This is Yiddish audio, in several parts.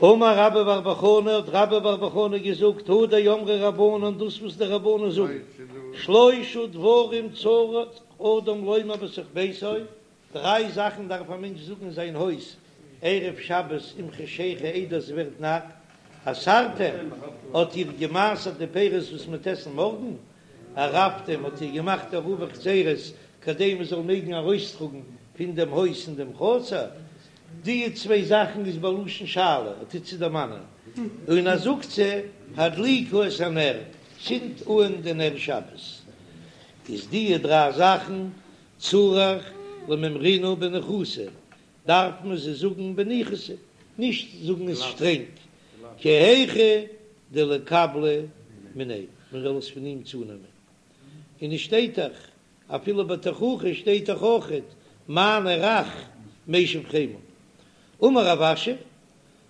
אמר רבה בר בר חנה, האט רבה בר בר חנה געזאגט, הא דאמרי רבנן, דאס וואס די רבנן זאגן, שלושה דברים צריך אדם לומר בתוך ביתו, דריי זאכן דארף א מענטש זאגן אין זיין הויז ערב שבת עם חשיכה איידער ס'ווערט נאכט, עשרתם, האט איר געמעשרט די פירות וואס מ'וועט עסן מארגן, עירבתם, האט איר געמאכט עירובי חצירות כדי מ'זאל מעגן ארויסטראגן פון דעם הויז אין דעם חצר, די צוויי זאכן איז בלשון שאלה, ער טוט צו דערמאנען, און ער זאגט צו, הדליקו את הנר, צינדט אן די נר שבת, איז די דריי זאכן צריך למימרינהו בניחותא, דארף מען זיי זאגן בניחותא, נישט זאגן עס שטרענג, כי היכי דליקבליה מיניה, מען זאל עס פון אים צונעמען, און עס שטייט דאך אפילו בתוכחה שטייט דאך אויכעט מענה רך משיב חמה. אמר רב אשי,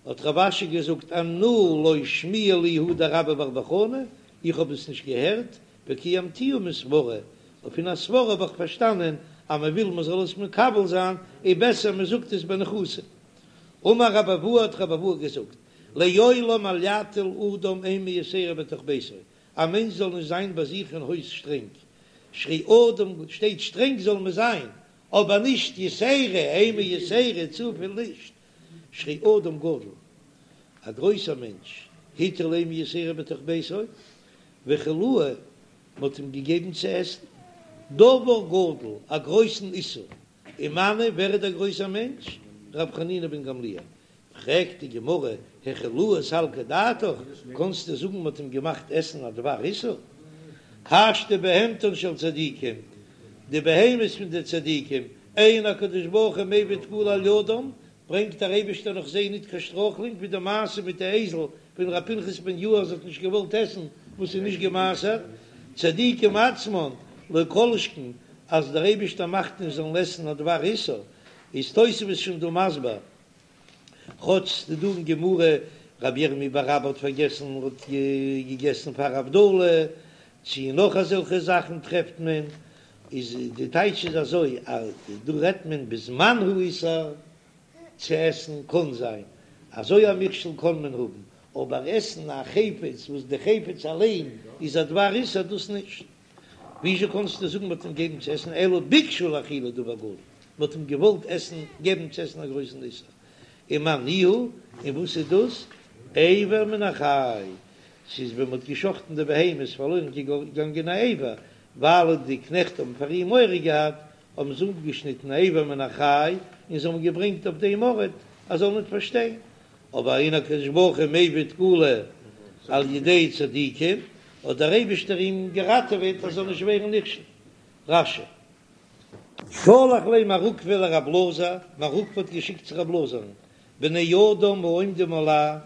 האט רב אשי געזאגט אנא לא שמיע לי הא דרבה בר בר חנה, איך האב עס נישט געהערט, וקיימתיה מסברא, און פון א סברא האב איך פארשטאנען אז מען וויל מען זאל עס מקבל זיין, איז בעסער מען זאגט עס בניחותא. אמר רבי אבהו האט רבי אבהו געזאגט, לעולם אל יטיל אדם אימה יתירה בתוך ביתו, א מענטש זאל נישט זיין ביי זיך אין הויז שטרענג, שהרי אדם שטייט שטרענג זאל מען זיין, אבער נישט יתירה, אימה יתירה, צופיל נישט, שהרי אדם גדול, א גרויסער מענטש, הטיל אימה יתירה בתוך ביתו, והאכילוהו, מען האט אים געגעבן צו עסן, דבר גדול, א גרויסן איסור, ומנו, ווער איז דער גרויסער מענטש? ר' חנינא בן גמליאל, פרעגט די גמרא, האכילוהו סלקא דעתך, קאנסטו זאגן מ'האט אים געמאכט עסן א דבר איסור? השתא בהמתן של צדיקים, די בהמות פון די צדיקים, אין הקדוש ברוך הוא מביא תקלה על ידם, ברענגט דער אייבערשטער נאך זיי ניט קיין שטרויכלונג, ווי די מעשה מיט די אייזל ווען ר' פנחס בן יאיר האט נישט געוואלט עסן וואס איז נישט געמעשרט, צדיקים עצמן לא כל שכן אז דער אייבערשטער מאכט נישט זאלן עסן א דבר איסור, איז תוספות שוין דא מסביר כאטש ס'איז דא אין גמרא רבי ירמי' בר אבא האט פארגעסן און האט געגעסן פאר הבדלה, צו נאך אזעלכע זאכן טרעפט מען, איז די טייטש איז אזוי אז דא רעדט מען בזמן האיסור צו עסן קאן זיין אזוי א מכשול קאן מען האבן, אבער עסן א חפץ וואס די חפץ אליין איז א דבר איסור דאס נישט. וויאזוי קאנסטו זאגן מ'האט אים געגעבן צו עסן אלא ביקשו להאכילו דבר גדול, מ'האט אים געוואלט עסן געבן צו עסן א גרויסן איסור, ומאי ניהו, און וואס איז דאס? אבר מן החי, ס'איז ווען מ'האט געשחטן די בהמה איז פארלוירן געגאנגען א אבר, ווייל די קנעכט האבן פאר אים מורא געהאט, האבן זיי אפגעשניטן א אבר מן החי און זיי האבן געברענגט אויף דעם ארט אז זאל ניט פארשטיין, אבער אין הקדוש ברוך הוא מביא תקלה על ידי צדיקים, האט דער אייבישטער אים געראטעוועט אז זאל נישט ווערן נכשל. רש"י. שלח ליה מר עוקבא לרב אלעזר, מר עוקבא האט געשיקט צו רב אלעזר'ן, בני אדם העומדים עלי,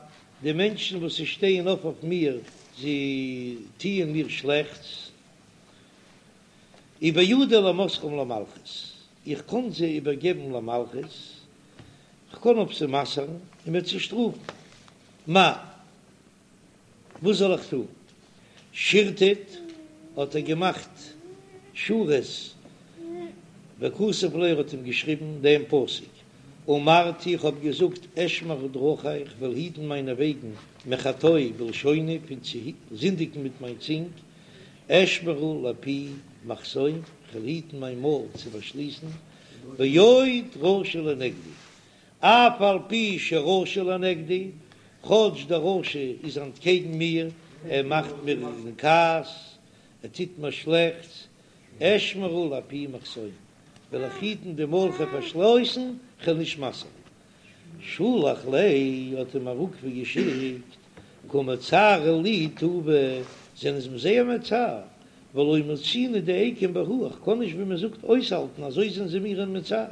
די מענטשן וואס זיי שטייען אויף אויף מיר, זיי טוען מיר שלעכטס, ובידי למסרם למלכות, איך קען זיי איבערגעבן למלכות, כ'קען אויף זיי מסר'ן און מ'וועט זיי שטראפן. מהו, וואס זאל איך טון? שירטט, האט ער געמאכט שורות, וכתב ליה, ער האט אים געשריבן דעם פסוק, אמרתי, איך האב געזאגט, אשמרה דרכי, איך וועל היטן מיינע וועגן, מחטוא בלשוני, פון צו זינדיגן מיט מיין צונג, אשמרה לפי מחסום, כ'וועל היטן מיין מויל צו פארשליסן, ועוד רשע לנגדי, אף על פי שרשע לנגדי, כאטש דער רשע איז אנטקעגן מיר, ער מאכט מיר אין כעס, ער טוט מיר שלעכטס, אשמרה לפי מחסום, וועל איך היטן די מויל כ'וועל פארשליסן, כ'וועל נישט מסר'ן. שלח ליה האט אים מר עוקבא געשיקט, קא מצערי לי טובא, זענען זיי מיר זייער מצער, ולא מצינא דאיקום בהו, איך קען נישט ווי מען זאגט אויסהאלטן, אזוי זענען זיי מיר מצער.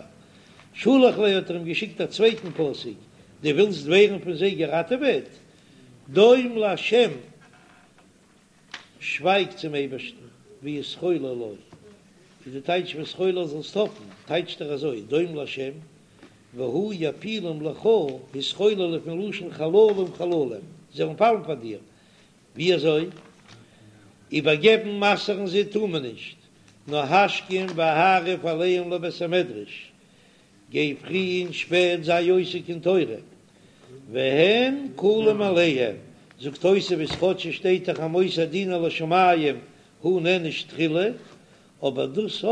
שלח ליה האט ער אים געשיקט א צווייטן פסוק, דו ווילסט ווערן פון זיי געראטעוועט? דום לה' שווייג צום אייבערשטן, והתחולל לו, איז די טייטש והתחולל זאלסט האפן, טייטשט ער אזוי, דום לה' והוא יפילם לך, התחולל איז פון לשון חללים חללים, זיי וועלן פאלן פאר דיר, ווי אזוי? איבערגעבן מסר'ן זיי טאר מען נישט, נאר השכם והערב עליהם לבית המדרש, גיי פרי און שפעט זיי עוסק אין תורה. והן כלים מאליהם, זאגט תוספות כאטש עס שטייט דאך המוסר דינו לשמים הוא נענש תחילה, אבער דאס א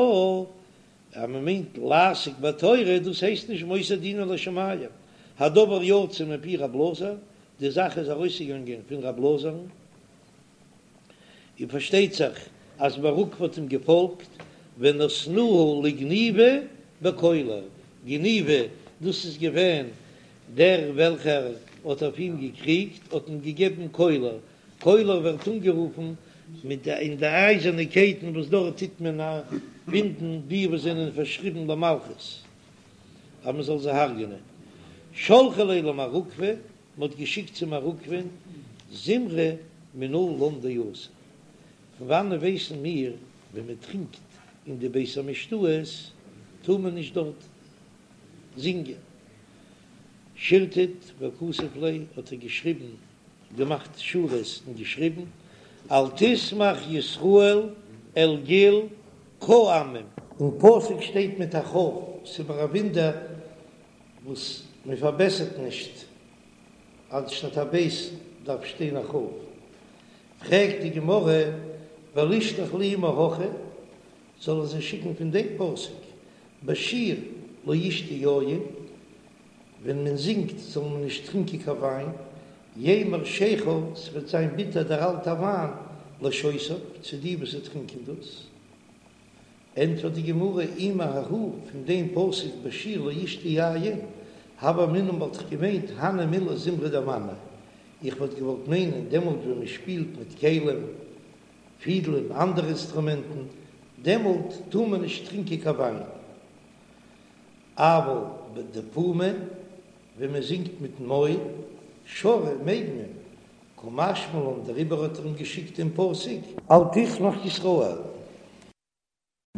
אז מען מיינט לעסוק בתורה דאס הייסט נישט מוסר דינו לשמים, הדבר יצא מפי רב אלעזר, די זאך איז ארויסגעגאנגען פון רב אלעזר'ן, און פארשטייט זיך אז מר עוקבא האט אים געפאלגט, ונתנוהו לגניבא בקולר, גניבא דאס איז געווען דער וועלכער האט אויף אים געקריגט, האט אים געגעבן קולר, קולר ווערט אנגערופן מיט די אין די אייזערנע קייטן וואס דארט טוט מען בינדן די וואס זענען פארשריבן למלכות אז מען זאל זיי הרג'נען. שלחו ליה למר עוקבא, מען האט געשיקט צו מר עוקבא'ן זמרה מנא לן דאסור. פון וואנען ווייסן מיר ווען מען טרינקט אין די בית המשתאות טאר מען נישט דארט זינגען? שירטט וכתב ליה האט ער געשריבן געמאכט שורות און געשריבן, אל תשמח ישראל אל גיל כעמים. אין פסוק שטייט מיט א כ', ס'איז מיר א וואונדער וואס מען פארבעסערט נישט, אנשטאט א ב' דארף שטיין א כ'. פרעגט די גמרא, ולישלח להו מהכא, זאל ער זיי שיקן פון דעם פסוק, בשיר לא ישתו יין, ווען מען זינגט זאל מען נישט טרינקען קיין וויין, ימר שכר, ס'וועט זיין ביטער דער אלטער וויין, לשותיו, צו די וואס טרינקען דאס. ענטפערט די גמרא, אי מההא, פון דעם פסוק בשיר לא ישתו יין, הוה אמינא וואלט איך געמיינט הני מילי זמרה דמנא, איך וואלט געוואלט מיינען דעמאלט ווען מען שפילט מיט כלים, פידלען, אנדערע אינסטרומענטן, דעמאלט טאר מען נישט טרינקען קיין וויין. אבל בדפומא, ווען מען זינגט מיטן מויל, שרי, מעג מען, קא משמע לן דעריבער האט ער אים געשיקט דעם פסוק. אל תשמח ישראל.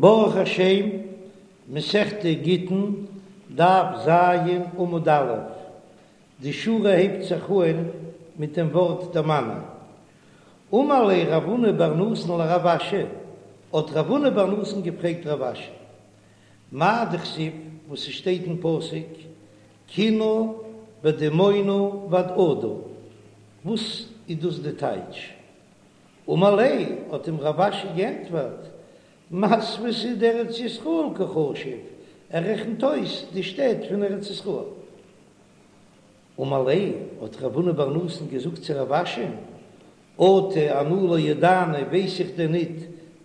ברוך השם, מסכת גיטין, דף ז, עמוד א', די שורה הייבט זיך אהן מיט דעם ווארט דמני. אמר ליה רב הונא בר נתן לרב אשי, האט רב הונא בר נתן געפרעגט רב אשי, מאי דכתיב וואס ס'שטייט אין פסוק קינה ודימונה ועדעדה, וואס איז דאס די טייטש? אמר ליה, האט אים רב אשי גענטפערט, מתוותא דארץ ישראל קא חשיב, ער רעכנט אויס די שטעט פון ארץ ישראל. אמר ליה, האט רב הונא בר נתן געזאגט צו רב אשי'ן, אטו אנא לא ידענא ווייס איך דען ניט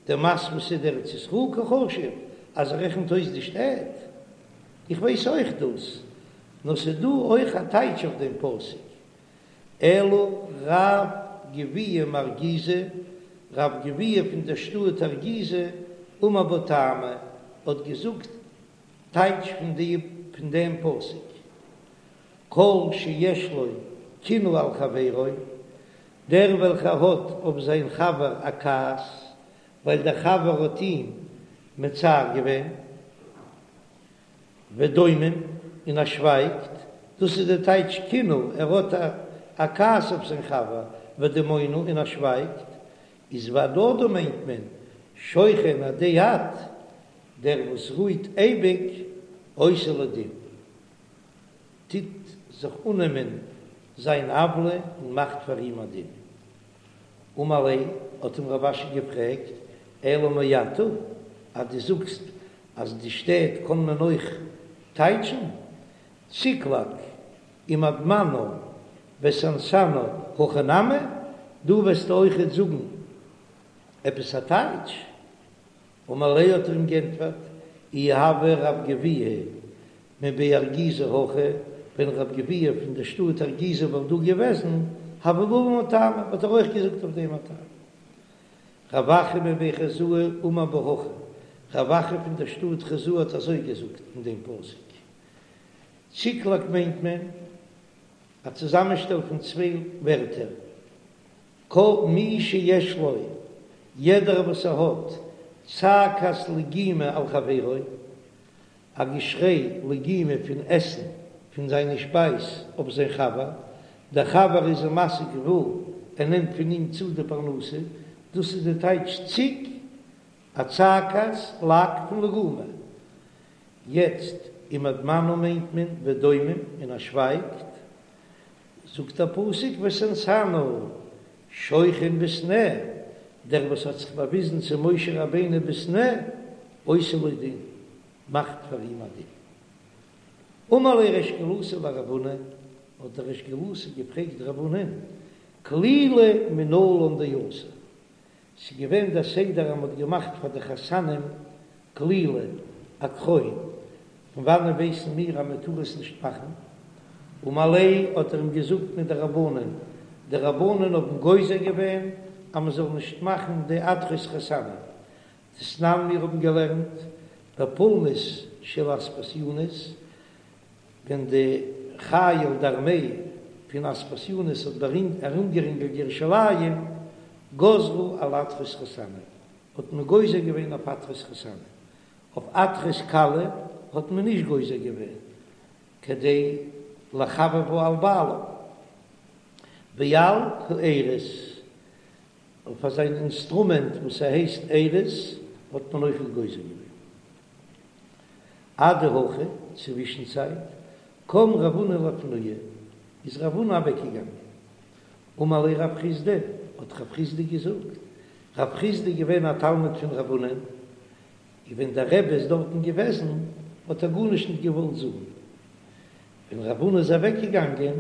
דמתוותא דארץ ישראל קא חשיב אז ער רעכנט אויס די שטעט? איך ווייס אויך דאס, נאר ס'איז דא אויך א טייטש אויף דעם פסוק, אלא רב גביהה מארגיזא, רב גביהה פון דער שטאט ארגיזא, אמר בה טעמא, האט געזאגט טייטש פון די פון דעם פסוק, כל שיש לו קנאה על חברו, דער וועלכער האט אויף זיין חבר א כעס, ווייל דער חבר האט אים מצער געווען, ודומם, און ער שווייגט, דאס איז דער טייטש קנאה, ער האט א כעס אויף זיין חבר, ודמונה, און ער שווייגט, איז והדדה מיינט מען, שוכן עדי עד, דער וואס רוהט אייביג, עושה לו דין. טוט זיך אננעמען זיין עוולה און מאכט פאר אים א דין. אמר ליה, האט אים רב אשי געפרעגט, אלא מעתה, אז דו זאגסט אז די שטעט קען מען אויך טייטשן, צקלג ומדמנה וסנסנה הכי נמי, דא וועסטו אויכעט זאגן עפעס א טייטש? אמר ליה האט ער אים גענטפערט, אי הוה רב גביהה מבי ארגיזא הכא, ווען רב גביהה פון דער שטאט ארגיזא וואלט דא געוועזן, הוה בא לן טעמא, וואלט ער אויך געזאגט אויף דעם א טעם. רב אחא מבי חוזאי אמר בה הכי, רב אחא פון דער שטאט חוזאי האט אזוי געזאגט אין דעם פסוק. צקלג מיינט מען א צוזאמענשטעל פון צוויי ווערטער, כל מי שיש לו, יעדער וואס ער האט, צעקת לגימה על חברו, א געשריי לגימה פון עסן פון זיינע שפייז אויף זיין חבר, דער חבר איז אים מסיג גבול, ער נעמט פון אים צו די פרנסה, דאס איז די טייטש ציק, א צעקת לג פון לגומא. יעצט ומדמנה מיינט מען ודומם און ער שווייגט. זאגט דער פסוק ותנתנה שוכן בסנה, דער וואס האט זיך באוויזן צו משה רבינו בסנה, עושה לו דין, מאכט פאר אים א דין. אמר ליה ריש גלותא לרב הונא, האט דער ריש גלותא געפרעגט רב הונא'ן, כלילא מנלן דאסור, ס'איז געווען דער סדר אז מ'האט געמאכט פאר די חתנים כלילא, א קרוין, פון וואנען ווייסן מיר אז מ'טאר עס נישט מאכן? אמר ליה האט ער אים געזאגט מדרבנן, די רבנן האבן גוזר געווען אז מ'זאל נישט מאכן די עטרות חתנים, דתנן מיר האבן געלערנט בפולמוס של אספסיונוס, ווען די חיל די ארמעי פון אספסיונוס האט ארומגערינגלט ירושלים, גזרו על עטרות חתנים, האט מען גוזר געווען אויף עטרות חתנים, אויף עטרות כלה האט מען נישט גוזר געווען, כדי לחבבה על בעלה, ועל האירוס, אויף אזא אינסטרומענט וואס ס'הייסט אירוס האט מען אויכעט גוזר געווען. אדהכי, צווישן צייט, קם רב הונא לאפנויי, איז רב הונא אוועקגעגאנגען. אמר ליה רב חסדא, האט רב חסדא געזאגט, רב חסדא איז געווען א תלמיד פון רב הונא, און ווען דער רבי איז דארטן געוועזן האט ער גארנישט נישט געוואלט זאגן. ווען רב הונא איז אוועק געגאנגען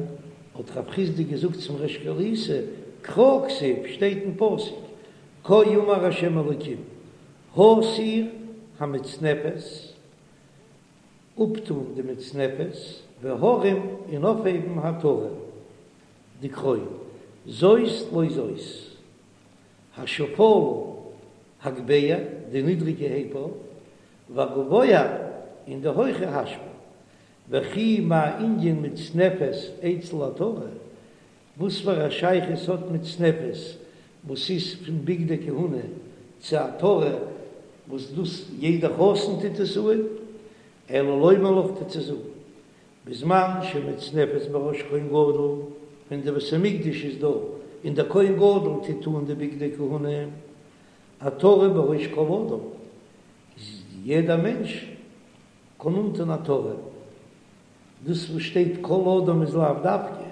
האט רב חסדא געזאגט צום ריש גלותא, קרא כתיב, שטייט אין פסוק, כה אמר ה' אלוקים, הסר המצנפת, אפטאן די מצנפת, והרם און אויפהייבן העטרה, די קרוין, זאת לא זאת, השפלה הגבה, די נידריגע הייב אויף, והגבוה און די הויכע השפיל, וכי מה ענין מצנפת אצל העטרה, וואס פאר א שייכות האט מצנפת וואס איז פון בגדי כהונה צו עטרה וואס דאס יעדע חתן טוט עס אן, אלא לומר לך טוט צו זאגן בזמן שמצנפת בראש כהן גדול, ווען די בית המקדש איז דא און דער כהן גדול טוט אן די בגדי כהונה, עטרה בראש כל אדם, איז יעדע מענטש קען אנטון עטרה. דאס וואס שטייט כל אדם איז לאו דווקא,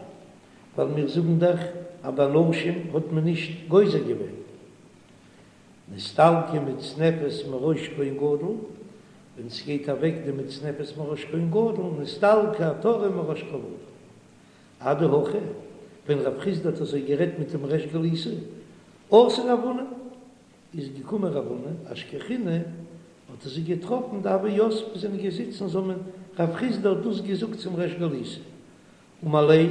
ווייל מיר זאגן דאך אז ביי נשים האט מען נישט גוזר געווען. נסתלקה מצנפת מראש כהן גדול, ווען ס'גייט אוועק די מצנפת מראש כהן גדול, נסתלקה עטרה מראש כל אדם. אדהכי, ווען רב חסדא האט אזוי גערעדט מיט דעם ריש גלותא, אתא רב הונא, איז געקומען רב הונא, אשכחינהו, האט ער זיי געטראפן דהוו יתבי זענען געזיצן צוזאמען, רב חסדא האט דאס געזאגט צום ריש גלותא, אמר ליה,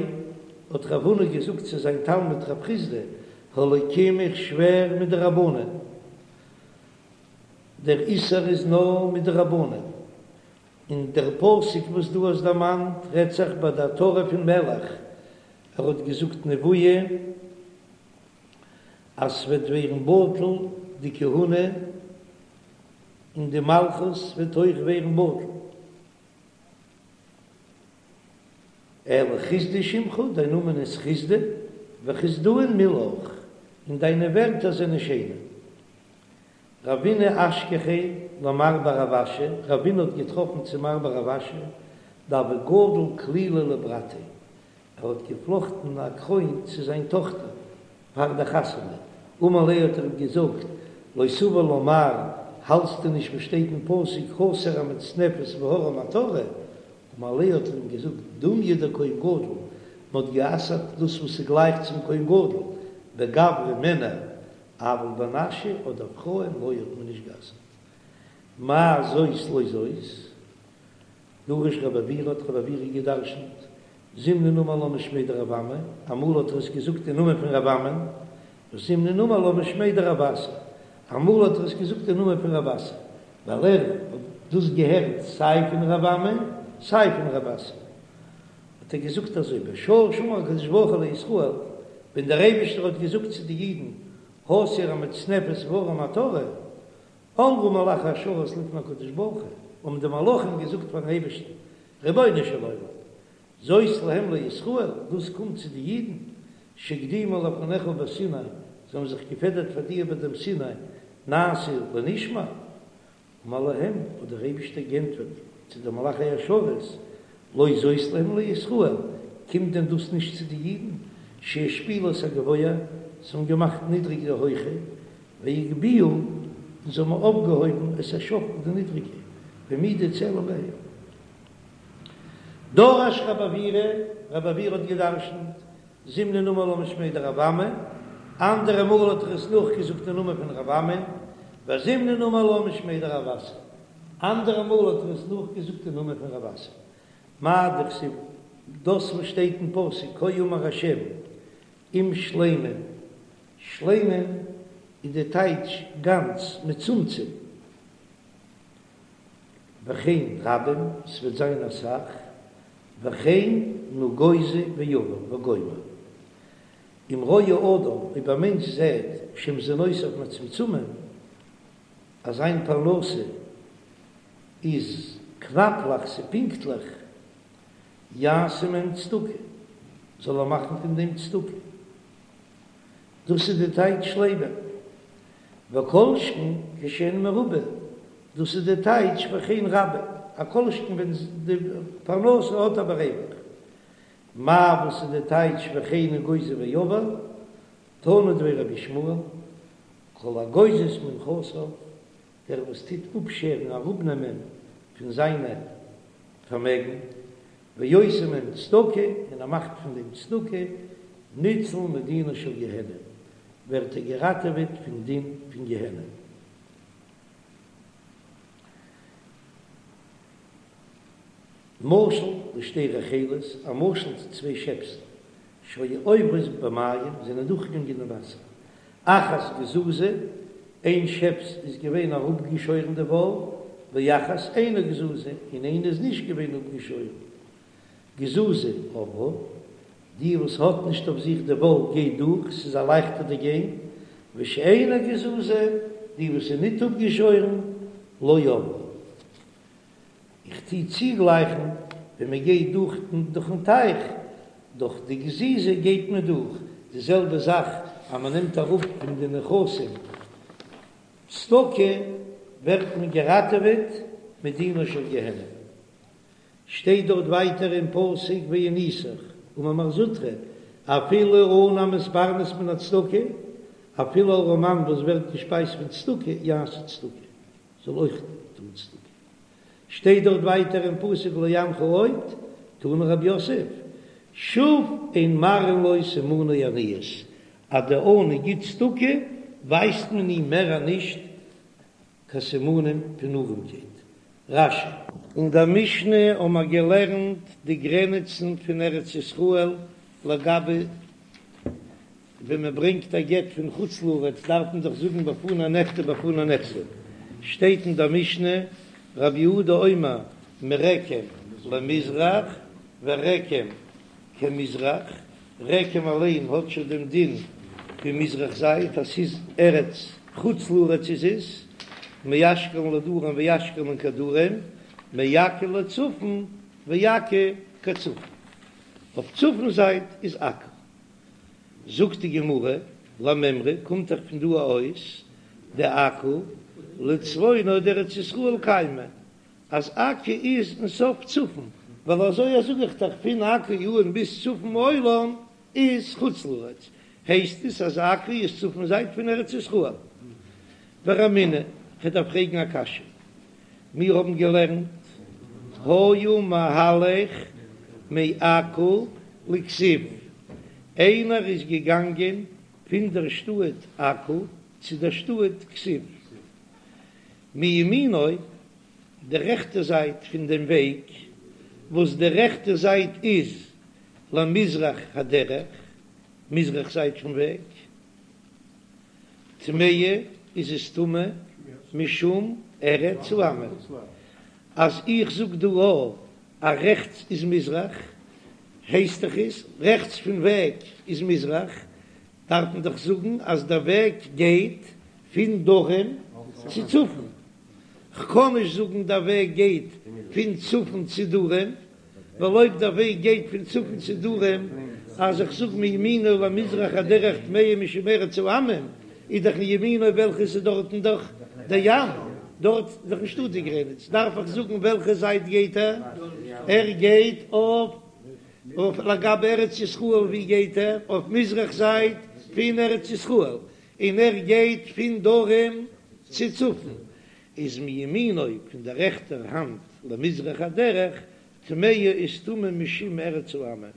האט רב הונא געזאגט צו זיין תלמיד רב חסדא, האלקים איך שווער מדרבנן, דער איסור איז נאר מדרבנן, און דער פסוק וואס דו האסט דערמאנט רעדט זיך ביי די עטרה פון מלך, ער האט געזאגט נבואה, אז ס'וועט ווערן בטל די כהונה און די מלכות וועט אויך ווערן בטל. אלא חסדא שמך, דיין נאמען איז חסדא, וחסדאין מילך, און דיינע ווערטער זענען שיינע. רבינא אשכחיה למר בר רב אשי, רבינא האט געטראפן צו מר בר רב אשי, דהוה גדיל כלילא לברתיה, ער האט געפלאכטן א קרוין צו זיין טאכטער פאר די חתונה, אמר ליה האט ער אים געזאגט, לא סבר לה מר, האלטסטו נישט וואס שטייט אין פסוק הסר המצנפת והרם העטרה, אמר ליה האט ער אים געזאגט, דומיא דכהן גדול, מען האט גע'אסר'ט דאס וואס איז גלייך צום כהן גדול, בגברי מענער, אבל בנשי אדער פרויען לא האט מען נישט גע'אסר'ט. מאי זאת לא זאת? דרש רבי עוירא האט רבי עוירא געדרשנט, זימנין אמר לה משמיה דרב אמי, אמאל האט ער עס געזאגט אין נאמען פון רב אמי, וזימנין אמר לה משמיה דרב אסי, אמאל האט ער עס געזאגט אין נאמען פון רב אסי, ווייל ער האט דאס געהערט סיי פון רב אמי סיי פון רב אסי, האט ער געזאגט אזוי, בשעה שאמר הקדוש ברוך הוא לישראל, ווען דער אייבישטער האט געזאגט צו די אידן, הסר המצנפת והרם העטרה, אמרו מלאכי השרת לפני הקדוש ברוך הוא, האבן די מלאכים געזאגט פארן אייבערשטן, רבונו של עולם, זאת להם לישראל, דאס קומט צו די אידן, שהקדימו לפניך בסיני, זיי האבן זיך געפעדערט פאר דיר ביי דעם סיני, נעשה לנשמע, אמר להם, האט דער אייבערשטער געענטפערט צו די מלאכי השרת, לא זאת להם לישראל, קומט דען דאס נישט צו די אידן, שהשפילו את הגבוה, זיי האבן געמאכט נידריג די הויכע, והגביהו, און זיי האבן אויפגעהויבן את השפל די נידריגע, והעמידו צלם בהיכל. דרש רב עוירא, רב עוירא האט געדרשנט, זימנין אמר לה משמיה דרב אמי, אנדערע מאל האט ער עס נאכגעזאגט אין נאמען פון רב אמי, וזימנין אמר לה משמיה דרב אסי, אנדערע מאל האט ער עס נאכגעזאגט אין נאמען פון רב אסי. מאי דכתיב, דאס וואס שטייט אין פסוק כה אמר השם אם שלמים, שלמים איז די טייטש גאנץ, מצומצם, וכן רבים, ס'וועט זיין אסאך, וכן נגוזו ועבר וגומר. אם רואה אדם, אויב א מענטש זעט שמזונותיו מצומצמים, אז זיין פרנסה איז קנאפלעך, ס'פינקטליך, יעשה מהם צדקה, זאל ער מאכן פון דעם צדקה. דאס איז די טייטש שלמים. וכל שכן כשהן מרובין, דאס איז די טייטש וכן רבים, א כל שכן ווען די פרנסה האט ער בריווח. מאי וואס איז די טייטש וכן נגוזו ועבר, תנא דבי רבי ישמעאל, כל הגוזז מנכסיו, דער וואס טוט אפשערן אראפנעמען פון זיינע פארמעגן, ועושה מהם צדקה, און ער מאכט פון דעם צדקה, ניצול מדינה של גיהנום, ווערט ער געראטעוועט פון דין פון גיהנום. משל לשתי רחלות, א משל צו צוויי שעפסן, שהיו עוברות במים, זענען דורכגעגאנגען אין וואסער, אחת גזוזה, איין שעפס איז געווען אראפגעשוירן די וואל, ואחת אינה גזוזה, און איינע איז נישט געווען אפגעשוירן. גזוזה עברה, די וואס האט נישט אויף זיך די וואל גייט דורך, ס'איז א לייכטער די גיין, ושאינה גזוזה, די וואס איז ניט אפגעשוירן, לא עברה. איך טו צוגלייכן ווען מען גייט דורך דורכן טייך, דורך די גזיזה גייט מען דורך, די זעלבע זאך אז מען נעמט אראפ פון די נכסים צדקה ווערט מען געראטעוועט מדינה של גיהנום. שטייט דארט ווייטער אין פסוק ועניתיך אמר מר זוטרא אפילו עני המתפרנס מן הצדקה, אפילו ארעמאן וואס ווערט געשפייזט פון צדקה יעשה צדקה. זאל אויך טון צדקה. שטייט דארט ווייטער אין פסוק ולא אענך עוד, תני רב יוסף, שוב אין מראין לו סימני עניות, אז דער עני גיט צדקה ווייזט מען אים מער נישט קיין סימנים פון ארעמקייט. רש"י. אין דער משנה האבן מיר געלערנט די גרעניצן פון ארץ ישראל לגבי ווען מען ברענגט א גט פון חוץ לארץ דארף מען דאך זאגן בפני נכתב בפני נחתם, שטייט אין דער משנה רבי יהודה אומר מרקם למזרח ורקם כמזרח, רקם אליין האט שוין דעם דין פון מזרח זייט אז ס'איז ארץ חוץ לארץ איז עס מאשקלון לדרום ואשקלון כדרום, מעכו לצפון ועכו כצפון, אויף צפון זייט איז עכו. זאגט די גמרא, למימרא קומט דאך פון דא אויס דעכו לצפונה דארץ ישראל קיימא, אז עכו איז אין סוף צפון, ווייל אזוי זאג איך דאך פון עכו אן ביז צפון העולם איז חוץ לארץ, הייסט עס אז עכו איז צפון זייט פון ארץ ישראל. ורמינהו, כ'דארף פרעגן א קשיא, מיר האבן געלערנט היה מהלך מעכו לכזיב, איינער איז געגאנגען פון דער שטאט עכו צו דער שטאט כזיב, מימינו, די רעכטע זייט פון דעם וועג, וואס די רעכטע זייט איז למזרח הדרך, מזרח זייט פון וועג. טמאה איז עס טמא משום ארץ העמים, אז איך זאג דא א אז רעכטס איז מזרח, הייסט דאך איז רעכטס פון וועג איז מזרח, דארף מען דאך זאגן אז דער וועג גייט פון דרום צו צפון, כ'קען נישט זאגן דער וועג גייט פון צפון צו דרום, ווייל אויב דער וועג גייט פון צפון צו דרום, אז איך זאג מימינו למזרח הדרך טמאה משום ארץ העמים, איז דאך מימינו וועלכע איז דארטן דאך דער ים, דארט איז דאך נישטא די גרעניץ, דארף איך זאגן וועלכע זייט גייט ער? ער גייט אויף. אויף לגבי ארץ ישראל ווי גייט ער? אויף מזרח זייט פון ארץ ישראל, און ער גייט פון דרום צו צפון, איז מימינו פון דער רעכטער האנט למזרח הדרך, טמאה איז טמא משום ארץ העמים,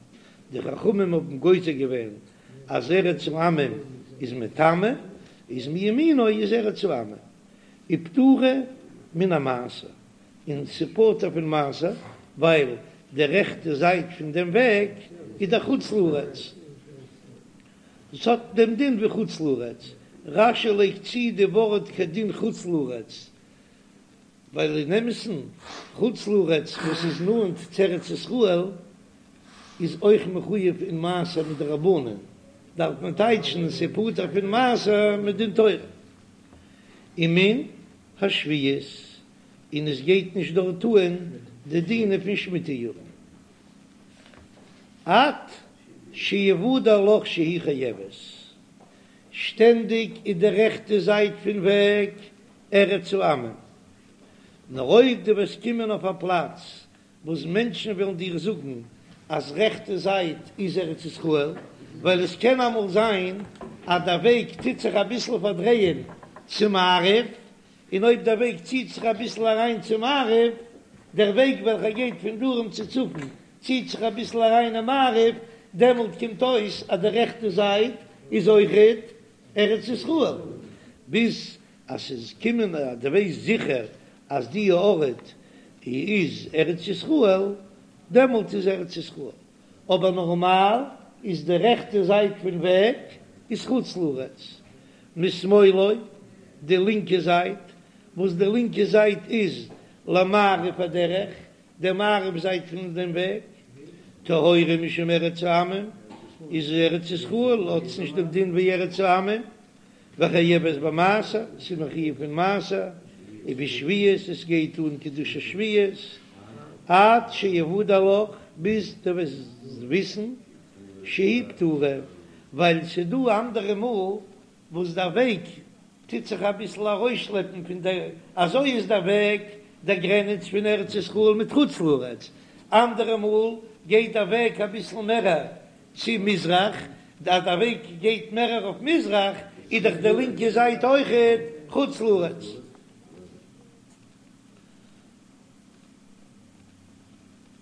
די חכמים האבן גוזר געווען אז ארץ העמים איז מטמא, איז מימינו איז ארץ העמים, ופטורה מן המעשר, און ס'פטור פון מעשר, ווייל די רעכטע זייט פון דעם וועג איז דאך חוץ לארץ, עס האט דעם דין ווי חוץ לארץ, רש"י לייגט צו די ווארט כדין חוץ לארץ, ווייל אין אמת'ן חוץ לארץ וואס איז נאנט צו ארץ ישראל איז אויך מחויב אין מעשר מדרבנן, דארף מען טייטשן ס'פטור פון מעשר מדין תורה. ומן השביעית, און עס גייט נישט דארט אן די דינים פון שמיטה יארן. עד שיוודע לך שהיא חייבת, שטענדיג איז די רעכטע זייט פון וועג ארץ העמים, נאר אויב דו וועסט קומען אויף א פלאץ וואס מענטשן וועלן דיר זאגן אז רעכטע זייט איז ארץ ישראל, ווייל עס קען אמאל זיין אז דער וועג טוט זיך אביסל פארדרייען צו מערב, און אויב דער וועג ציט זיך אביסל אריין צו מערב, דער וועג וועלכער גייט פון דרום צו צפון ציט זיך אביסל אריין אין מערב, דעמאלט קומט אויס אז די רעכטע זייט איז אויכעט ארץ ישראל, ביז אז ס'איז קומען אז דו ווייסט זיכער אז די ארט איז ארץ ישראל, דעמאלט איז ארץ ישראל, אבער נארמאל איז די רעכטע זייט פון וועג איז חוץ לארץ, משמאלו די לינקע זייט, וואס די לינקע זייט איז למערב הדרך, די מערב זייט פון דעם וועג, טהורה משום ארץ העמים, איז ארץ ישראל האט עס נישט דעם דין ווי ארץ העמים, וחייבת במעשר, ס'איז מחויב פון מעשר, ובשביעית, עס גייט אן קדושת שביעית, עד שיוודע לך, ביז דו וועסט וויסן, שהיא פטורה, ווייל ס'איז דא אנדערע מאל וואס דער וועג טוט זיך אביסל ארויסשלעפן פון דער, אזוי איז דער וועג דער גרעניץ פון ארץ ישראל מיט חוץ לארץ, אנדערע מאל גייט דער וועג אביסל מערער צו מזרח, אז דער וועג גייט מערער אויף מזרח איז דאך די לינקע זייט אויכעט חוץ לארץ.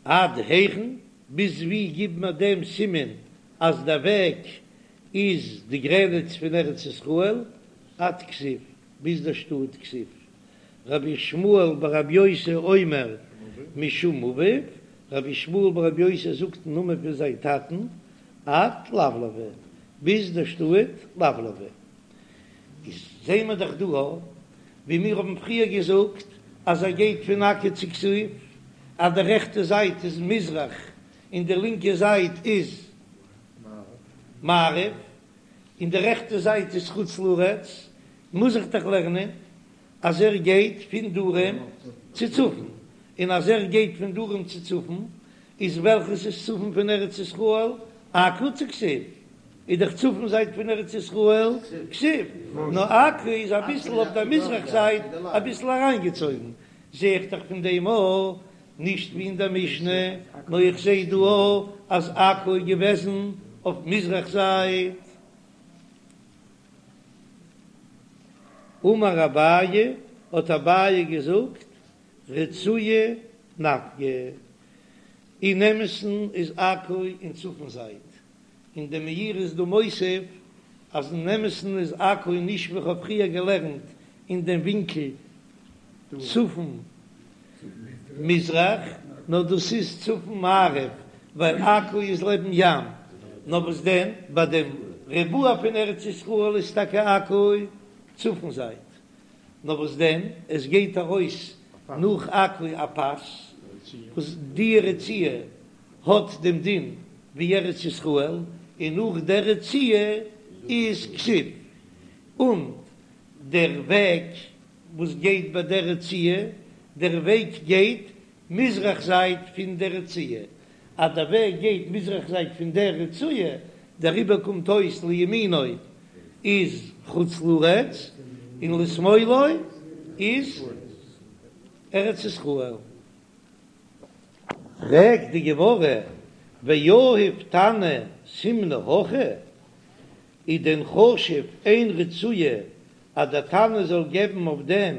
עד היכן, ביז ווי גיב מיר דעם סימן אז דער וועג איז די גרעניץ פון ארץ ישראל? עד כזיב, ביז דער שטאט כזיב. רבי ישמעאל ברבי יוסי אומר משום אביו, רבי ישמעאל ברבי יוסי זאגט אין נאמען פון זיין טאטן, עד לבלבה, ביז דער שטאט לבלבה. איז זעהן מיר דאך דא ווי מיר האבן פריער געזאגט אז ער גייט פון עכו צו כזיב, אז די רעכטע זייט איז מזרח און די לינקע זייט איז מערב, און די רעכטע זייט איז חוץ לארץ, מוז איך דאך לערנען אז ער גייט פון דרום צו צפון, און אז ער גייט פון דרום צו צפון, איז וועלכעס איז צפון פון ארץ ישראל? עכו צו כזיב? איז דאך צפון זייט פון ארץ ישראל כזיב, נאר עכו איז אביסל אויף דער מזרח זייט אביסל אריינגעצויגן, זע איך דאך פון דעם אויך, נישט ווי אין דער משנה, נאר איך זע דא אויך אז עכו איז געוועזן אויף מזרח זייט. אמר אביי, האט אביי געזאגט, רצועה נפקא, אין אמת'ן איז עכו אין צפון זייט, און דער מאירי איז דא מוסיף אז אין אמת'ן איז עכו נישט ווי כ'האב פריער געלערנט אין דעם ווינקל צפון מזרח, נאר דאס איז צפון מערב, ווייל עכו איז לעבן ים, נאר וואס דען ביי דעם ריבוע פון ארץ ישראל איז טאקע עכו צפון זייט, נאר וואס דען עס גייט ארויס נאך עכו א פאס וואס די רצועה האט דעם דין ווי ארץ ישראל, און נאך דער רצועה איז כזיב, און דער וועג וואס גייט ביי דער רצועה, דער וועג גייט מזרח זייט פון דער רצועה, אז דער וועג גייט מזרח זייט פון דער רצועה, דעריבער קומט אויס לימינו איז חוץ לארץ און לשמאלו איז ארץ ישראל. פרעגט די גמרא. ויהיב תנא סימנא הכי, איז דען חשוב איין רצועה אז דער תנא זאל געבן אויף דעם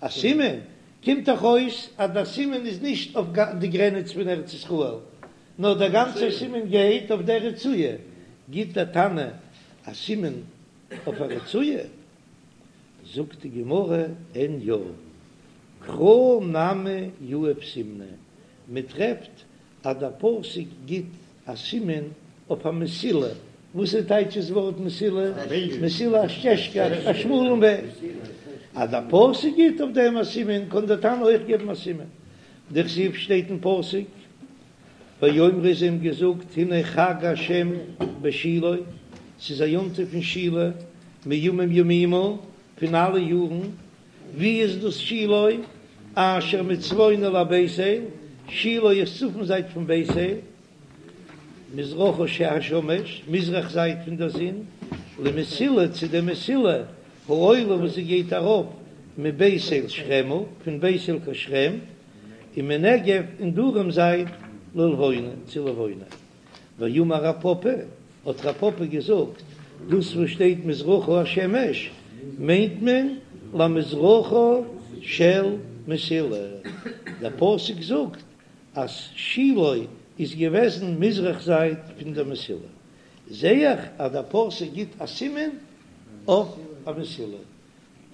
א סימן? קומט דאך אויס אז דער סימן איז נישט אויף די גרעניץ פון ארץ ישראל, נאר דער גאנצער סימן גייט אויף דער רצועה, גיט דער תנא א סימן אויף א רצועה? זאגט די גמרא, אין יא, קרא נמי יהיב סימנא, מען טרעפט אז דער פסוק גיט א סימן אויף א מסילה, וואס איז טייטש דאס ווארט מסילה? מסילה א סטעזשקע, א שמאלן וועג. אז דער פסוק גיט אויף דעם א סימן, קען דער תנא אויך געבן א סימן. דכתיב שטייט אין פסוק, ויאמרו זיי האבן געזאגט הנה חג השם בשילה, ס'איז א יום טוב פון שילה, מימים ימימה, פון אלע יארן, ווי איז דאס שילה? אשר מצפונית לבית אל, שילה איז צפון זייט פון בית אל, מזרחה השמש, מזרח זייט פון דער זון, למסילה צו דער מסילה, העולה וואס זי גייט ארויף מבית אל שכמה, פון בית אל קיין שכם, ומנגב און דרום זייט ללבונה, צו לבונה. ואמר רב פפא, האט רב פפא געזאגט, דאס וואס שטייט מזרחה השמש מיינט מען למזרחה של מסילה, דער פסוק זאגט אז שילה איז געוועזן מזרח זייט פון דער מסילה, זע איך אז דער פסוק גיט א סימן אויף א מסילה,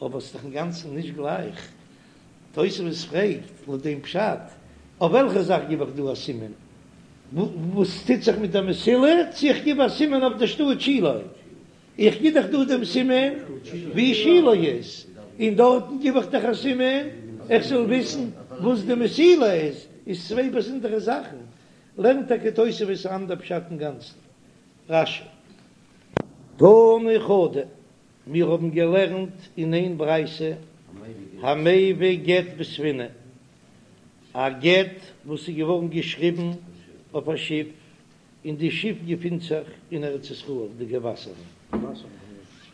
אבער ס'איז דאך אינגאנצן נישט גלייך. תוספות פרעגט לויט דעם פשט, אויף וועלכע זאך גיב איך דא א סימן? וואס טוט זיך מיט דער מסילה? צו איך גיב א סימן אויף דער שטאט שילה? איך גיב דאך דא דעם סימן ווי שילה איז, און דארטן גיב איך דאך א סימן איך זאל וויסן וואס די מסילה איז, איז צוויי באזונדערע זאכן. לערנט טאקע תוספות אן אנדער פשט אינגאנצן. רש"י. תנא חדא, מיר האבן געלערנט אין איין ברייתא, המביא גט בספינה, א גט וואס איז געווארן געשריבן אויף א שיף, און די שיף געפינט זיך אין ארץ ישראל, די געוואסערן,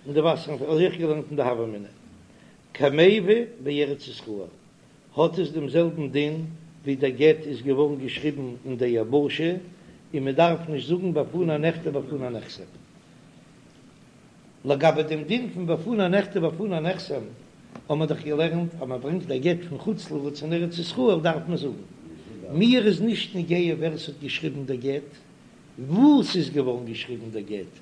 אין די וואסערן, אזוי האב איך געלערנט אין די הוה אמינא, כמביא בארץ ישראל, האט עס דעם זעלבן דין ווי דער גט איז געווארן געשריבן אין די יבשה, און מען דארף נישט זאגן בפני נכתב בפני נחתם. לגבי דעם דין פון בפני נכתב בפני נחתם, האבן מיר דאך געלערנט אז מען ברענגט א גט פון חוץ לארץ אין ארץ ישראל דארף מען זאגן, מיר איז נישט נוגע ווער ס'האט געשריבן דער גט, וואו ס'איז געווארן געשריבן דער גט,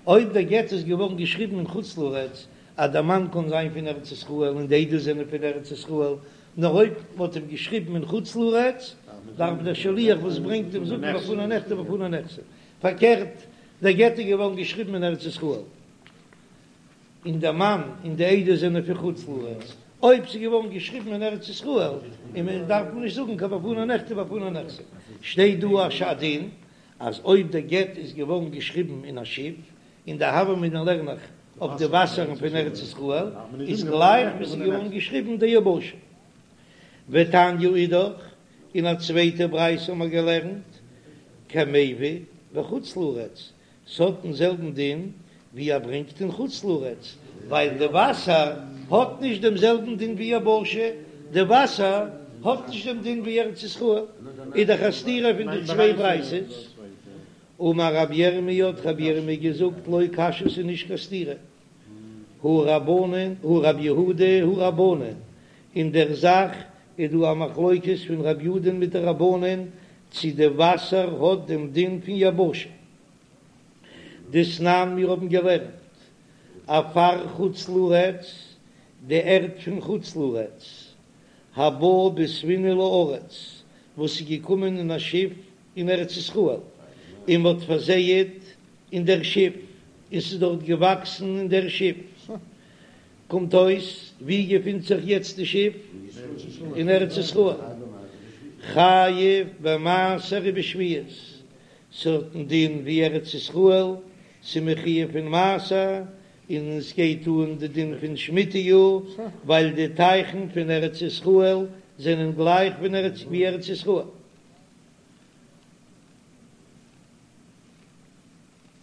אויב דער גט איז געווארן געשריבן אין חוץ לארץ, אז דער מאן קען זיין פון ארץ ישראל און די עדות זענען פון ארץ ישראל, נאר אויב מ'האט אים געשריבן אין חוץ לארץ, דארף דער שליח וואס ברענגט אים זאגן בפני נכתב בפני נחתם. פארקערט, דער גט איז געווארן געשריבן אין ארץ ישראל, און דער מאן און די עדות זענען פון חוץ לארץ, אויב ס'איז געווארן געשריבן אין ארץ ישראל, און מען דארף מען נישט זאגן קיין בפני נכתב בפני נחתם, שטייט דא א דין אז אויב דער גט איז געווארן געשריבן אין א שיף, אין די הוה אמינא לערן איך אויף די וואסערן פון ארץ ישראל, איז גלייך ווי ס'איז געווארן געשריבן די יבשה. ותניא אידך, אין א צווייטע ברייתא האבן מיר געלערנט, כמביא בחוץ לארץ, ס'האט דעם זעלבן דין ווי ער ברענגט אין חוץ לארץ, ווייל די וואסער האט נישט דעם זעלבן דין ווי יבשה, די וואסער האט נישט דעם דין ווי ארץ ישראל, איז דאך א סתירה פון די צוויי ברייתות. אמר רבי ירמי' האט רבי ירמי' געזאגט לא קשיא ס'איז נישט קיין סתירה, הא רבנן הא רבי יהודה הא רבנן, אין דער זאך איז דא א מחלוקת פון רבי יהודה'ן מיט די רבנן צי די וואסער האט דעם דין פון יבשה. דתנן מיר האבן געלערנט עפר חוץ לארץ, די ערד פון חוץ לארץ, הבא בספינה לארץ, וואס איז געקומען אין א שיף אין ארץ ישראל, און מ'האט פארזייעט אין דער שיף, און ס'איז דארט געוואקסן אין דער שיף. קומט אויס, וואו געפינט זיך יעצט די שיף? אין ארץ ישראל. חייב במעשר ובשביעית, ס'האט דעם דין ווי ארץ ישראל, ס'איז מחויב פון מעשר, און עס גייט אן די דין פון שמיטה יאר, ווייל די טייכן פון ארץ ישראל זענען גלייך ווי ארץ ישראל.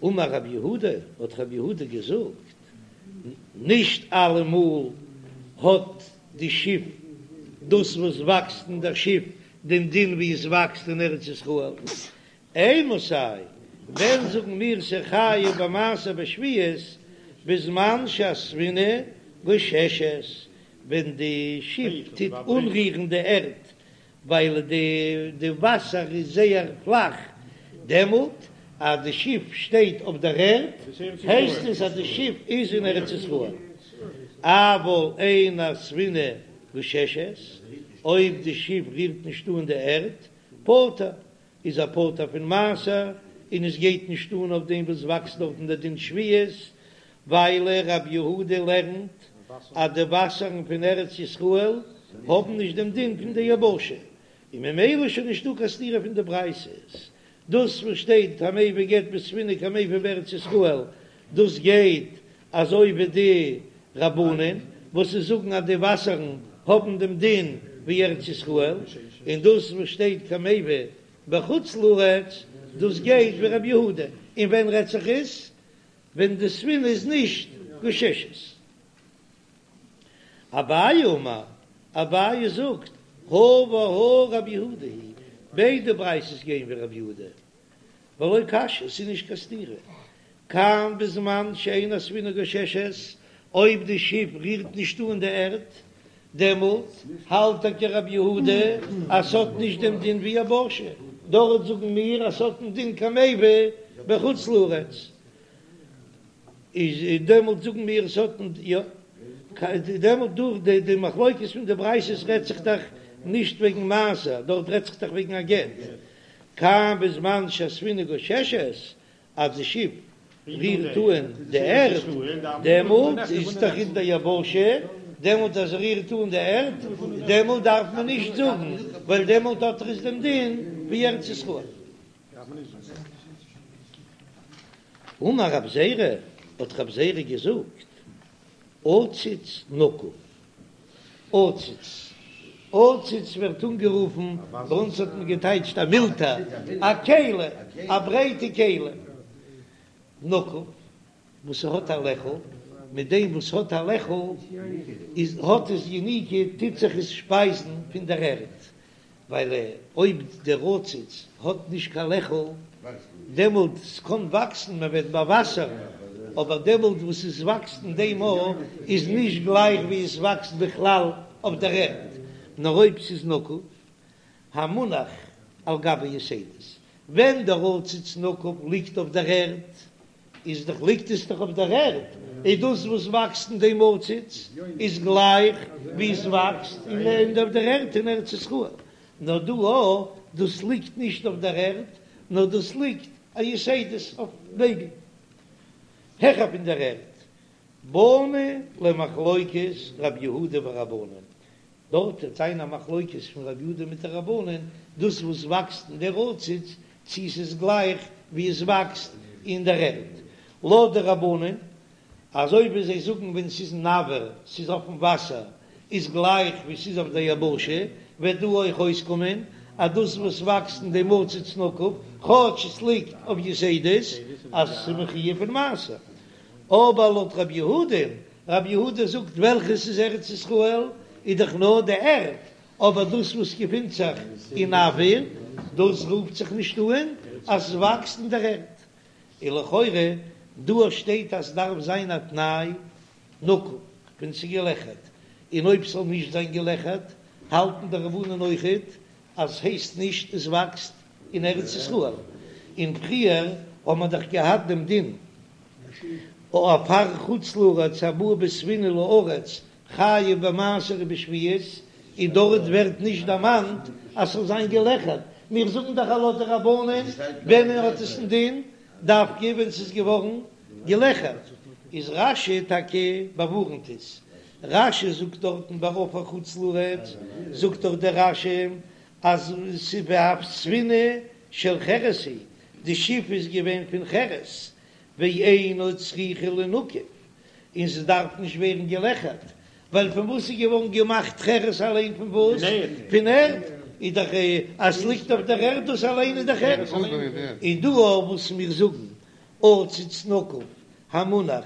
אמר רב יהודה, האט רב יהודה געזאגט, נישט אלעמאל האט די שיף, דאס וואס וואקסט אין דער שיף, דעם דין ווי עס וואקסט אין ארץ ישראל. אימתי, ווען זאגן מיר ס'חייב במעשר בשביעית, בזמן שהספינה גוששת, ווען די שיף טוט אנרירן די ערד, ווייל די וואסער איז זייער פלאך, דעמאלט אז די שיף שטייט אויף דער ערד, הייסט עס אז די שיף איז אין ארץ ישראל. אבל אין הספינה גוששת, אויב די שיף רירט נישט אן די ערד, פטור, איז ער פטור פון מעשר, און עס גייט נישט אן אויף דעם וואס וואקסט דארטן דער דין שביעית, ווייל רבי יהודה לערנט אז די וואסערן פון ארץ ישראל האבן נישט דעם דין פון די יבשה, און ממילא איז שוין נישטא קיין סתירה פון די ברייתות. דאס וואס שטייט המביא גט בספינה כמביא בארץ ישראל, דאס גייט אזוי ווי די רבנן וואס זיי זאגן אז די וואסערן האבן דעם דין ווי ארץ ישראל, און דאס וואס שטייט כמביא בחוץ לארץ, דאס גייט ווי רבי יהודה, און ווען רעדט זיך עס? ווען די ספינה איז נישט גוששת. אביי אמר, אביי זאגט, הא והא רבי יהודה היא, ביידע ברייתות גייען ווי רבי יהודה, ולא קשיא, ס'איז נישט קיין סתירה, כאן בזמן שאין הספינה גוששת, אויב די שיף רירט נישט אן די ערד, דעמאלט האלט טאקע רבי יהודה אז ס'האט נישט דעם דין ווי יבשה, דארט זאגן מיר אז ס'האט דעם דין כמביא בחוץ לארץ, איז דעמאלט זאגן מיר ס'האט יא, דעמאלט דורך די די מחלוקת פון די ברייתות רעדט זיך דאך נישט וועגן מעשר, דארט רעדט זיך דאך וועגן א גט, כאן בזמן שהספינה גוששת, אז די שיף רירט אן די ערד, דעמאלט איז דאך אין די יבשה, דעמאלט אז ער רירט אן די ערד, דעמאלט דארף מען נישט זאגן, ווייל דעמאלט האט ער עס דעם דין ווי ארץ ישראל. אמר רב זירא, האט רב זירא געזאגט, עציץ נקוב, עציץ, עציץ ווערט אנגערופן, ביי אונז האט מען געטייטשט א מילתא, א כלי, א ברייטע כלי, נקוב, וואס ס'האט א לעכל, מיט דעם וואס האט א לעכל איז האט עס יניקה, טוט זיך עס שפייזן פון דער ערד, ווייל אויב דער עציץ האט נישט קיין לעכל, דעמאלט ס'קען וואקסן, מען וועט באוואסערן, אבער דעמאלט וואס עס וואקסט אין דעם ארט איז נישט גלייך ווי עס וואקסט בכלל אויף דער ערד, נאר אויב ס'איז נקוב, המונח על גבי יתדות, ווען דער עציץ נקוב ליגט אויף דער ערד, איז דאך ליגט עס דאך אויף דער ערד, איז דאס וואס וואקסט אין דעם עציץ איז גלייך ווי עס וואקסט אין אויף דער ערד אין ארץ ישראל, נאר דא א דאס ליגט נישט אויף דער ערד, נאר דאס ליגט א יתדות אויף נעגל העכער פון דער ערד. באנו למחלוקת רב יהודה ורבנן, דארט וועט זיין א מחלוקת פון רב יהודה מיט די רבנן, דאס וואס וואקסט אין דער עציץ, צי ס'איז גלייך ווי עס וואקסט אין דער ערד. לויט די רבנן, אזוי ווי זיי זאגן ווען ס'איז אין אויר, ס'איז אויפן וואסער, איז גלייך ווי ס'איז אויף דער יבשה, וועט דא אויך אויסקומען אז דאס וואס וואקסט אין דעם עציץ נקוב, כאטש עס ליגט אויף יתדות, אז ס'איז מחויב פון מעשר. אבער לויט רב יהודה'ן, רב יהודה זאגט וועלכעס איז ארץ ישראל איז דאך נאר די ערד, אבער דאס וואס געפינט זיך אין אויר, דאס רופט זיך נישט אן אז עס וואקסט אין דער ערד. און לכאורה דא שטייט אז ס'דארף זיין א תנאי נקוב ווען ס'איז געלעכערט, און אויב ס'זאל נישט זיין געלעכערט האלטן די רבנן אויכעט אז ס'הייסט נישט עס וואקסט אין ארץ ישראל, און פריער האט מען דאך געהאט דעם דין עפר חוץ לארץ הבא בספינה לארץ חייב במעשר ובשביעית, און דארט ווערט נישט דערמאנט אז ס'זאל זיין געלעכערט, מיר זאגן דאך אז לויט די רבנן ווען האט עס א דין דווקא ווען ס'איז געווארן געלעכערט, איז רש"י טאקע באווארנט עס, רש"י זאגט דארטן ביי עפר חוץ לארץ זאגט דאך דער רש"י אז ס'איז ספינה של חרס היא, די שיף איז געווען פון חרס, ואינה צריכה לינקב, און ס'דארף נישט ווערן געלעכערט, ווייל פון וואס איז געווארן געמאכט חרס אליין פון וואס? פון ערד, איז דאך אז ס'ליגט אויף דער ערד דאס אליין איז דאך ערד, און דא אויף וואס מיר זאגן עציץ נקוב המונח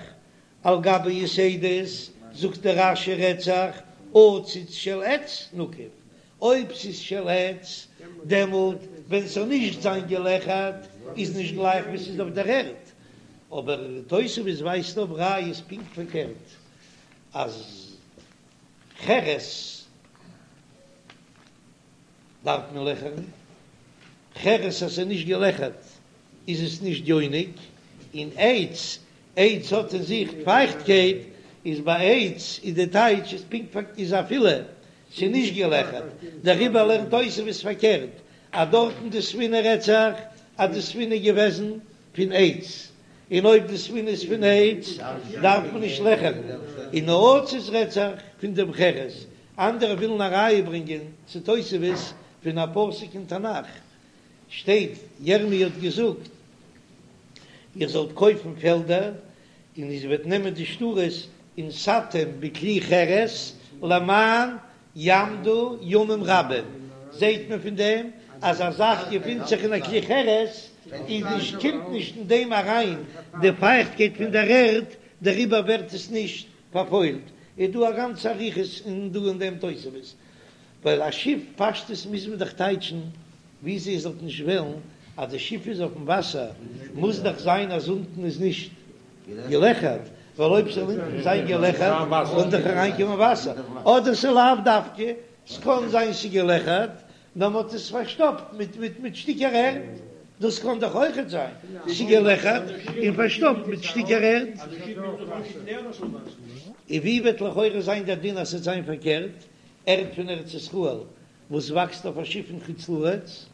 על גבי יתדות, זאגט דער רש"י רעדט זיך עציץ של עץ נקוב, אויב ס'איז של עץ דעמאלט ווען ס'זאל נישט זיין געלעכערט. איז נישט גלייך ווי ס'איז אויף דער ערד, אבער תוספות ווייזט אויף ראיות פונקט פארקערט אז חרס דארף מען לעכערן, חרס אז ס'איז נישט געלעכערט איז עס נישט יונק, און עץ, עץ האט אין זיך פייכטקייט, איז ביי עץ איז די טייטש איז פונקט פארקערט איז אפילו ס'איז נישט געלעכערט, דעריבער לערנט תוספות פארקערט אז דארטן די ספינה רעדט זיך אז די ספינה איז געוועזן פון עץ, און אויב די ספינה איז פון עץ דארף מען נישט לעכערן, און נעצות רעדט זיך פון דעם חרס, אנדערע ווילן א ראיה ברענגען צו תוספות פון א פסוק אין תנך, שטייט ירמי' האט געזאגט איר זאלט קויפן פעלדער און איר וועט נעמען די שטרות ונתתם בכלי חרס למען יעמדו ימים רבים, זעהט מען פון דעם אז א זאך געפינט זיך אין א כלי חרס איז נישט קומט נישט אין דעם אריין די פייכטקייט פון דער ערד דעריבער ווערט עס נישט פארפוילט, איז דא א גאנצע אריכות אין דא אין דעם תוספות, ווייל א שיף פשטות מוז מען דאך טייטשן ווי זי זאלט נישט וועלן אז די שיף איז אויפן וואסער מוז דאך זיין אז אונטן איז נישט געלעכערט, ווייל אויב ס'זאל אונטן זיין געלעכערט וואלט דאך אריינקומען וואסער, אדער ס'לאו דווקא, ס'קען זיין ס'געלעכערט נאר מ'האט עס פארשטאפט מיט מיט מיט שטיקער ערד, דאס קען דאך אויכעט זיין, ס'געלעכערט און פארשטאפט מיט שטיקער ערד. און ווי וועט לכאורה זיין דער דין אז ס'וועט זיין פארקערט, ערד פון ארץ ישראל וואס וואקסט אויף א שיף אין חוץ לארץ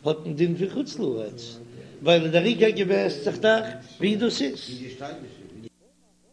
האט דעם דין פון חוץ לארץ, ווייל דער עיקר געוועסט זיך דאך ווי דאס איז.